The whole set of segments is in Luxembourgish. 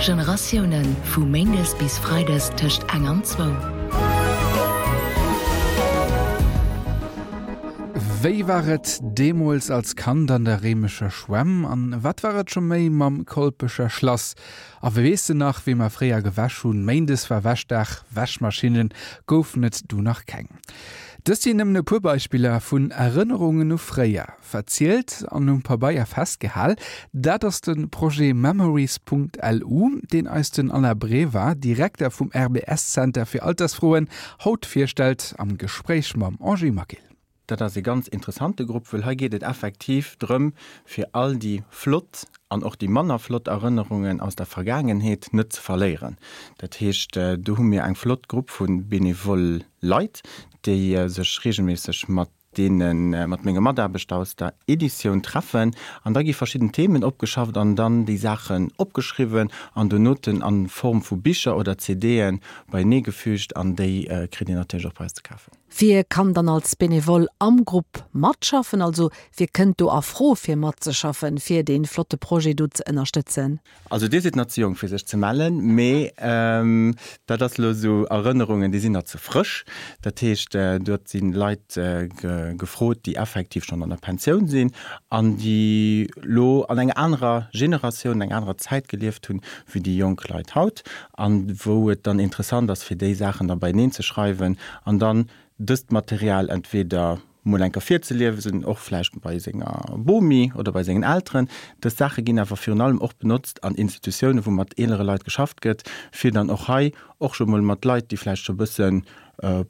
Generatiounen, vu méindes bis freides tëscht eng an zwou. Wéi war et deemools als Kand an der Réimecher Schwämm? An wat war et scho méi mam Kolpecher Schlass? A weess de nach, wéi mer fréier gewäsch hunn? Méindes war Wäschdag, Wäschmaschinnen goufen et du nach keng. Dëst sinn nëmmen e puer Beispiller vun Erënnerungen u fréier. Verzielt an um Pabeier festgehal, dat ass de Projet Memories.lu, deen eis den Alain Brever, Direkter vum RBS-Zenter fir Altersfroen, haut virstellt am Gespréich mam Angie Maquil. Dat ass e ganz interessante Grupp, wëll hei geet et effektiv drëm, fir all déi flott an och déi manner flott Erënnerungen aus der Vergaangenheet net ze verléieren. Dat heescht, do hu mir eng flott Grupp vu benevole Leit, déi sech reegelméisseg mat deene mat menge Mataarbechter aus der Editioun treffen an da gi verschidden Themen opgeschafft an dann déi Saachen opgeschriwwen an donoten a Form vu Bicher oder CDe beienee gefügt an déi kritt een natierlech och bei eis ze kafen. Wie kann dann als Benevole am Grupp matschaffen? Also wie kënnt do a Fro fir matzeschaffen, fir dee flotte Projet do ze ënnerstëtzen? Also dir sidd nach ze jonk fir sech ze mellen, mee dat ass elo esou Erënnerungen, déi sinn nach ze frësch. Dat heescht, dort si Leit gefrot, déi effektiv schonn an der Pensioun sinn an déi elo an enger anerer Generatioun, an enger anerer Zäit gelieft hunn, wéi déi jonk Leit haut, an wou et dann interessant ass, fir déi Saachen da beieneen ze schreiwen an dann dëst Material entweder mol eng Kéier virzeliesen, och vläicht bei senger Bomi oder bei sengen Elteren. Dës Saache ginn awer virun allem och benotzt an Institutiounen, wou mat eelere Leit geschafft gëtt, fir dann och hei och scho mol mat Leit, déi vläicht scho e bësse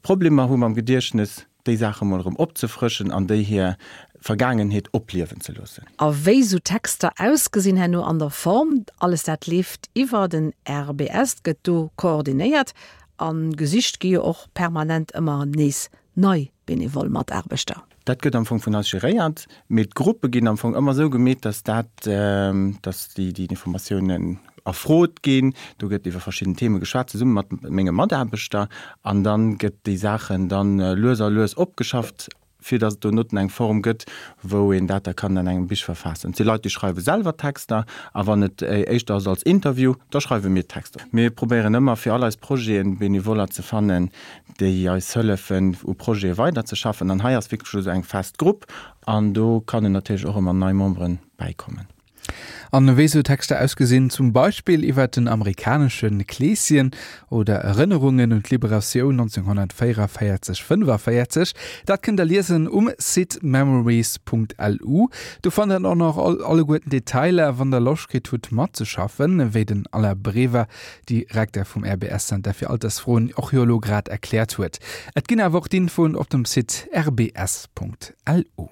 Problemer hu mam Gediechtnes, déi Saache mol erëm opzefrëschen an déi hir Vergaangenheet opliewen ze loossen. A wéi sou Texter ausgesinn herno an der Form, alles dat leeft iwwer den RBS, gëtt do koordinéiert a gesicht gi jo och permanent ëmmer nees nei benevol Mataarbechter. Dat gëtt am Fong vun eis geréiert, mee d'Gruppe ginn am Fong ëmmer esou gemeet, dass dat, dass déi déi Informatiounen erfrot ginn. Do gëtt iwwer verschidden Theme geschwat, zesumme mat menge Mataarbechter, an dann gëtt déi Saachen dann lues a lues opgeschafft, fir dass et donotten eng Form gëtt, wou een dat da kann an engem Bich verfaassen. Et si Leit, déi schreiwe selwer Texter, a wann et éischter ass als Interview, da schreiwe mir d'Texter. Mir probéieren ëmmer, fir all eis Projeten Benevoller ze fannen, déi eis hëllefen, u Projete weiderzeschaffen. An hei ass wierklech elo esou eng fest Grupp an do kannen natierlech och ëmmer nei Membere bäikommen. An wéi sou Texter ausgesinn, zum Beispill iwwer den amerikanesche Kleeschen oder Erënnerungen un d'Liberatioun 1944, 45, dat kënnt der liesen um Site memories.lu. Do fannt der och nach alleguerten Detailer, wann der Loscht kritt hutt matzeschaffen, wéi den Alain Brever Direkter vum RBS-Zenter fir Altersfroen, och jo elo grad erkläert huet. Et ginn awer och d'Infoen op dem Site rbs.lu.